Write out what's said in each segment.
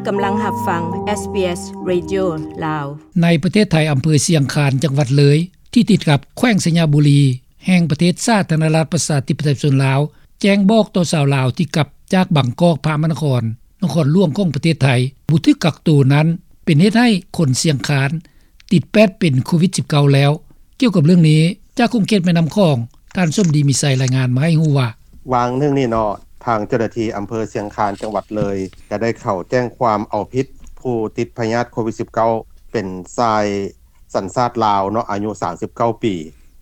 ກຳລັງຮັບຟັງ ເອສບີເອສ ເຣດິໂອ ລາວ. ໃນປະເທດໄທ, ອຳເພີຊຽງຄານ ຈັງຫວັດເລີຍ ທີ່ຕິດກັບແຂວງໄຊຍະບູລີ ແຫ່ງປະເທດສາທາລະນະລັດ ປະຊາທິປະໄຕ ປະຊາຊົນລາວ ແຈ້ງບອກຕໍ່ຊາວລາວທີ່ກັບຈາກບາງກອກ ພະມະນະຄອນ ນະຄອນຫຼວງຂອງປະເທດໄທ ບໍ່ຖືກກັກໂຕນັ້ນ ເປັນເຫດໃຫ້ຄົນຊຽງຄານ ຕິດແປດເປັນໂຄວິດສິບເກົ້າແລ້ວ. ກ່ຽວກັບເລື່ອງນີ້, ຈາກຂົງເຂດແມ່ນ້ຳຂອງ, ທ່ານສົມດີ ມີໄຊ ລາຍງານມາໃຫ້ຮູ້ວ່າ, ຫວ່າງໜຶ່ງນີ້ເນາະ, ທາງເຈົ້າໜ້າທີ່ອຳເພີຊຽງຄານ ຈັງຫວັດເລີຍ ກໍໄດ້ເຂົ້າແຈ້ງຄວາມເອົາຜິດຜູ້ຕິດພະຍາດໂຄວິດສິບເກົ້າ ເປັນຊາຍສັນຊາດລາວເນາະ, ອາຍຸສາມສິບເກົ້າປີ,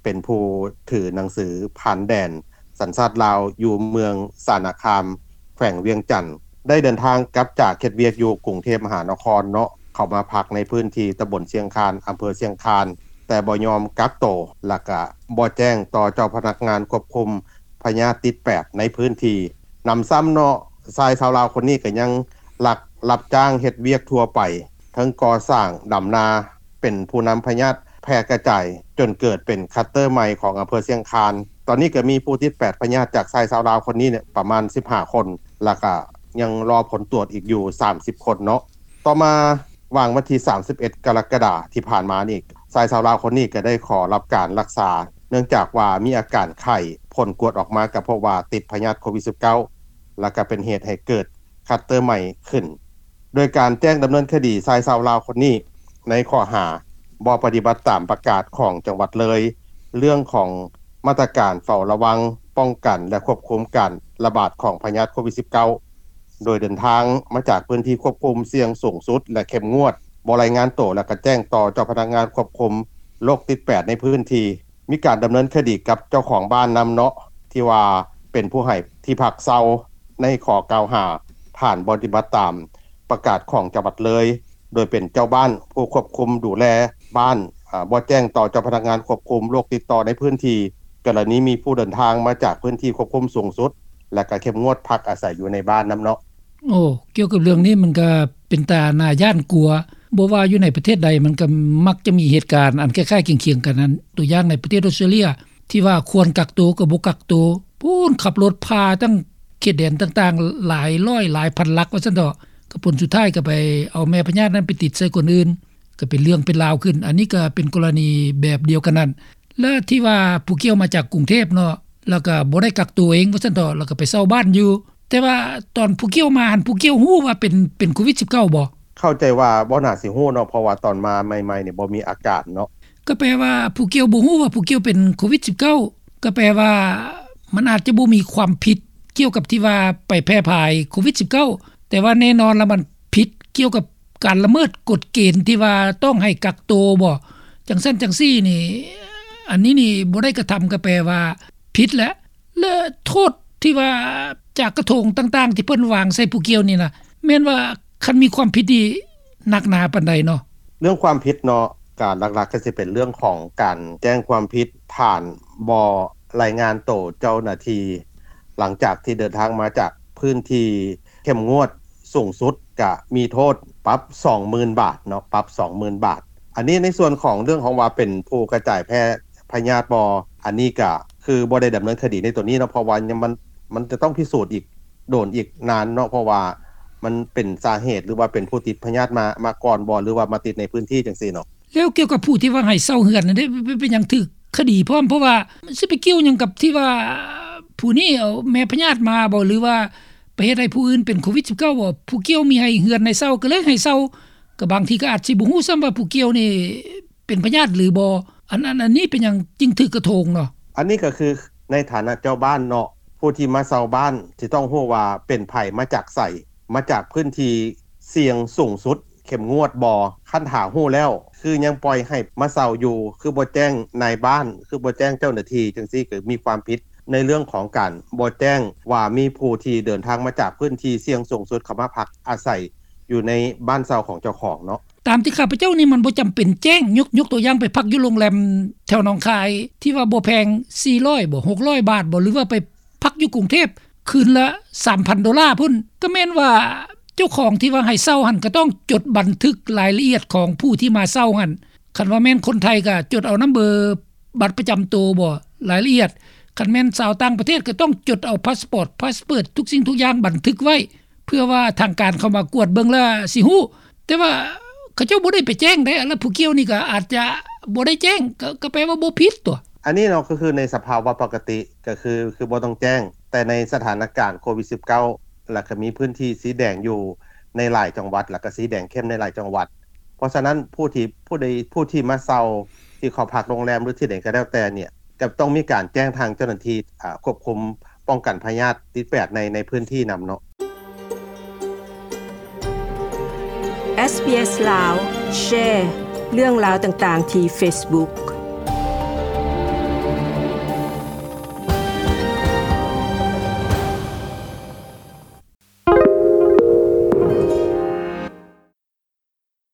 ເປັນຜູ້ຖືໜັງສືຜ່ານແດນສັນຊາດລາວ ຢູ່ເມືອງສານະຄາມ ແຂວງວຽງຈັນ ໄດ້ເດີນທາງກັບຈາກເຮັດວຽກຢູ່ກຸງເທບມະຫານະຄອນເນາະ, ເຂົ້າມາພັກໃນພື້ນທີ່ຕຳບົນຊຽງຄານ ອຳເພີຊຽງຄານ ແຕ່ບໍ່ຍອມກັກໂຕ ແລະກະບໍ່ແຈ້ງຕໍ່ເຈົ້າພະນັກງານຄວບຄຸມພະຍາດຕິດແປດໃນພື້ນທີ່. ນຳຊ້ຳເນາະ, ຊາຍຊາວລາວຄົນນີ້ກໍຍັງລັກຮັບຈ້າງເຮັດວຽກທົ່ວໄປ, ເຖິງກໍ່ສ້າງ, ດຳນາ, ເປັນຜູ້ນຳພະຍາດແຜ່ກະຈາຍ ຈົນເກີດເປັນຄລັດເຕີໃໝ່ຂອງອຳເພີຊຽງຄານ. ຕອນນີ້ກໍມີຜູ້ຕິດແປດພະຍາດຈາກຊາຍຊາວລາວຄົນນີ້ເນຍ ປະມານສິບຫ້າຄົນ ແລະກະຍັງລໍຜົນກວດອີກຢູ່ສາມສິບຄົນເນາະ. ຕໍ່ມາຫວ່າງວັນທີສາມສິບເອັດ ກໍລະກະດາທີ່ຜ່ານມານີ້, ຊາຍຊາວລາວຄົນນີ້ກໍໄດ້ຂໍຮັບການລັກສາ ເນື່ອງຈາກວ່າມີອາການໄຂ້, ຜົນກວດອອກມາກໍພົບວ່າຕິດພະຍາດໂຄວິດສິບເກົ້າ ແລະກໍເປັນເຫດໃຫ້ເກີດຄລັດເຕີໃໝ່ຂຶ້ນ. ໂດຍການແຈ້ງດຳເນີນຄະດີຊາຍຊາວລາວຄົນນີ້ ໃນຂໍ້ຫາບໍ່ປະຕິບັດຕາມປະກາດຂອງຈັງຫວັດເລີຍ ເລື່ອງຂອງມາດຕະການເຝົ້າລະວັງ, ປ້ອງກັນ ແລະ ຄວບຄຸມການລະບາດຂອງພະຍາດໂຄວິດສິບເກົ້າ ໂດຍເດີນທາງມາຈາກພື້ນທີ່ຄວບຄຸມສ່ຽງສູງສຸດ ແລະ ເຂັ້ມງວດ, ບໍ່ລາຍງານໂຕ ແລະ ກະແຈ້ງຕໍ່ເຈົ້າພະນັກງານຄວບຄຸມໂລກຕິດແປດໃນພື້ນທີ່. ມີການດຳເນີນຄະດີກັບເຈົ້າຂອງບ້ານນຳເນາະ ທີ່ວ່າເປັນຜູ້ໃຫ້ທີ່ພັກເຊົ່າ ໃນຂໍ້ກ່າວຫາ ຖານບໍ່ປະຕິບັດຕາມປະກາດຂອງຈັງຫວັດເລີຍ, ໂດຍເປັນເຈົ້າບ້ານຜູ້ຄວບຄຸມດູແລບ້ານ, ອາ, ບໍ່ແຈ້ງຕໍ່ເຈົ້າພະນັກງານຄວບຄຸມໂລກຕິດຕໍ່ໃນພື້ນທີ່, ກໍລະນີມີຜູ້ເດີນທາງມາຈາກພື້ນທີ່ຄວບຄຸມສູງສຸດ ແລະ ກໍເຂັ້ມງວດພັກອາໄສຢູ່ໃນບ້ານນຳເນາະ. ໂອ້ ກ່ຽວກັບເລື່ອງນີ້ມັນກໍເປັນຕາໜ້າຢ້ານກົວ, ບໍ່ວ່າຢູ່ໃນປະເທດໃດ ມັນກໍມັກຈະມີເຫດການອັນຄ້າຍໆຄຽງໆກັນນັ້ນ. ຕົວຢ່າງໃນປະເທດອອສເຕຣເລຍ ທີ່ວ່າຄວນກັກໂຕກໍບໍ່ກັກໂຕ, ພຸ້ນ ຂັບລົດຜ່າຕັ້ງເຂດແດນຕ່າງໆ ຫຼາຍຮ້ອຍຫຼາຍພັນຫຼັກວ່າຊັ້ນເຖາະ, ກໍຜົນສຸດທ້າຍກໍໄປເອົາແມ່ພະຍາດນັ້ນໄປຕິດໃສ່ຄົນອື່ນ, ກໍເປັນເລື່ອງເປັນລາວຂຶ້ນ. ອັນນີ້ກໍເປັນກໍລະນີແບບດຽວກັນນັ້ນ. ແລະທີ່ວ່າຜູ້ກ່ຽວມາຈາກກຸງເທບເນາະ, ແລ້ວກໍບໍ່ໄດ້ກັກໂຕເອງວ່າຊັ້ນເຖາະ, ແລ້ວກໍໄປເຊົ່າບ້ານຢູ່. ແຕ່ວ່າຕອນຜູ້ກ່ຽວມາຫັ້ນ ຜູ້ກ່ຽວຮູ້ວ່າເປັນ ເປັນໂຄວິດສິບເກົ້າບໍ່? ເຂົ້າໃຈວ່າບໍ່ໜ້າຊິຮູ້ເນາະ, ເພາະວ່າຕອນມາໃໝ່ໆນີ້ບໍ່ມີອາການເນາະ. ກໍແປວ່າຜູ້ກ່ຽວບໍ່ຮູ້ວ່າຜູ້ກ່ຽວເປັນໂຄວິດສິບເກົ້າ, ກໍແປວ່າມັນອາດຈະບໍ່ມີຄວາມຜິດກ່ຽວກັບທີ່ວ່າໄປແຜ່ພາຍໂຄວິດສິບເກົ້າ, ແຕ່ວ່າແນ່ນອນລະມັນຜິດກ່ຽວກັບ ການລະເມີດກົດເກນທີ່ວ່າຕ້ອງໃຫ້ກັກໂຕບໍ່ ຈັ່ງຊັ້ນຈັ່ງຊີ້ນີ້, ອັນນີ້ນີ້ບໍ່ໄດ້ກະທຳກໍແປວ່າຜິດແຫຼະ. ແລະໂທດທີ່ວ່າຈາກກະທົງຕ່າງໆທີ່ເພິ່ນວາງໃສ່ຜູ້ກ່ຽວນີ້ນະ ແມ່ນວ່າຄັນມີຄວາມຜິດນີ້ໜັກໜາປານໃດເນາະ? ເລື່ອງຄວາມຜິດເນາະ, ການຫຼັກໆກໍຊິເປັນເລື່ອງຂອງການແຈ້ງຄວາມຜິດຖານບໍ່ລາຍງານໂຕເຈົ້າໜ້າທີ່ ຫຼັງຈາກທີ່ເດີນທາງມາຈາກພື້ນທີ່ເຂັ້ມງວດ ສູງສຸດກະມີໂທດປັບສອງໝື່ນບາດເນາະ, ປັບສອງໝື່ນບາດ. ອັນນີ້ໃນສ່ວນຂອງເລື່ອງຂອງວ່າເປັນຜູ້ກະຈາຍແຜ່ພະຍາດບໍ່, ອັນນີ້ກະຄືບໍ່ໄດ້ດຳເນີນຄະດີໃນຕົວນີ້ເນາະ, ເພາະວ່າຍັງ ມັນ ມັນຈະຕ້ອງພິສູດອີກ ໂດນອີກນານເນາະ, ເພາະວ່າມັນເປັນສາເຫດ ຫຼືວ່າເປັນຜູ້ຕິດພະຍາດມາ ມາກ່ອນບໍ່ ຫຼືວ່າມາຕິດໃນພື້ນທີ່ຈັ່ງຊີ້ເນາະ. ແລ້ວກ່ຽວກັບຜູ້ທີ່ວ່າໃຫ້ເຊົ່າເຮືອນນັ້ນເດ້ ເປັນ ເປັນຫຍັງຖືກຄະດີພ້ອມ? ເພາະວ່າຊິໄປກ່ຽວຫຍັງກັບທີ່ວ່າຜູ້ນີ້ເອົາແມ່ພະຍາດມາບໍ່ ຫຼືວ່າໄປເຮັດໃຫ້ຜູ້ອື່ນເປັນໂຄວິດສິບເກົ້າບໍ່? ຜູ້ກ່ຽວມີໃຫ້ເຮືອນໃຫ້ເຊົ່າ ກໍເລີຍໃຫ້ເຊົ່າ, ກໍບາງທີກໍອາດຊິບໍ່ຮູ້ຊ້ຳວ່າຜູ້ກ່ຽວນີ້ເປັນພະຍາດຫຼືບໍ່. ອັນ ອັນ ອັນນີ້ເປັນຫຍັງຈຶ່ງຖືກກະໂທງເນາະ? ອັນນີ້ກໍຄືໃນຖານະເຈົ້າບ້ານເນາະ, ຜູ້ທີ່ມາເຊົ່າບ້ານຊິຕ້ອງຮູ້ວ່າເປັນໃຜ ມາຈາກໃສ, ມາຈາກພື້ນທີ່ສ່ຽງສູງສຸດ ເຂັ້ມງວດບໍ່? ຄັນຖ້າຮູ້ແລ້ວ ຄືຍັງປ່ອຍໃຫ້ມາເຊົ່າຢູ່? ຄືບໍ່ແຈ້ງນາຍບ້ານ? ຄືບໍ່ແຈ້ງເຈົ້າໜ້າທີ່? ຈັ່ງຊີ້ກໍມີຄວາມຜິດໃນເລື່ອງຂອງການບໍ່ແຈ້ງວ່າມີຜູ້ທີ່ເດີນທາງມາຈາກພື້ນທີ່ສ່ຽງສູງສຸດເຂົ້າມາພັກອາໄສຢູ່ໃນບ້ານເຊົ່າຂອງເຈົ້າຂອງເນາະ. ຕາມທີ່ຂ້າພະເຈົ້ານີ້ມັນບໍ່ຈຳເປັນແຈ້ງ, ຍົກ ຍົກຕົວຢ່າງໄປພັກຢູ່ໂຮງແຮມແຖວໜອງຄາຍ ທີ່ວ່າບໍ່ແພງ ສີ່ຮ້ອຍບໍ່ ຫົກຮ້ອຍບາດບໍ່ ຫຼືວ່າໄປ ພັກຢູ່ກຸງເທບ ຄືນລະສາມພັນໂດລາພຸ້ນ, ກໍແມ່ນວ່າເຈົ້າຂອງທີ່ວ່າໃຫ້ເຊົ່າຫັ້ນ ກໍຕ້ອງຈົດບັນທຶກລາຍລະອຽດຂອງຜູ້ທີ່ມາເຊົ່າຫັ້ນ. ຄັນວ່າແມ່ນຄົນໄທກໍຈົດເອົານຳເບີບັດປະຈຳໂຕບໍ ລາຍລະອຽດ, ຄັນແມ່ນຊາວຕ່າງປະເທດກໍຕ້ອງຈົດເອົາພາສປອດ ພາສເປີດ ທຸກສິ່ງທຸກຢ່າງບັນທຶກໄວ້. ເພື່ອວ່າທາງການເຂົ້າມາກວດເບິ່ງແລ້ວຊິຮູ້. ແຕ່ວ່າເຂົາເຈົ້າບໍ່ໄດ້ໄປແຈ້ງເດ້ ແລ້ວຜູ້ກ່ຽວນີ້ກໍອາດຈະບໍ່ໄດ້ແຈ້ງ ກໍ ກໍແປວ່າບໍ່ຜິດຕົວະ. ອັນນີ້ເນາະ ກໍຄືໃນສະພາວະປົກກະຕິ ກໍຄື ຄືບໍ່ຕ້ອງແຈ້ງ, ແຕ່ໃນສະຖານະການໂຄວິດສິບເກົ້າ ແລ້ວກໍມີພື້ນທີ່ສີແດງຢູ່ໃນຫຼາຍຈັງຫວັດ ແລ້ວກໍສີແດງເຂັ້ມໃນຫຼາຍຈັງຫວັດ. ເພາະສະນັ້ນ ຜູ້ທີ່ ຜູ້ໃດ ຜູ້ທີ່ມາເຊົ່າ ທີ່ເຂົ້າພັກໂຮງແຮມ ຫຼື ທີ່ໃດກໍແລ້ວແຕ່ເນ່ຍ ກໍຕ້ອງມີການແຈ້ງທາງເຈົ້າໜ້າທີ່ ອາ ຄວບຄຸມປ້ອງກັນພະຍາດຕິດແປດໃນ ໃນພື້ນທີ່ນຳເນາະ. ເອສ ບີ ເອສ ລາວ ແຊເລື່ອງລາວຕ່າງໆທີ່ເຟສບຸກ.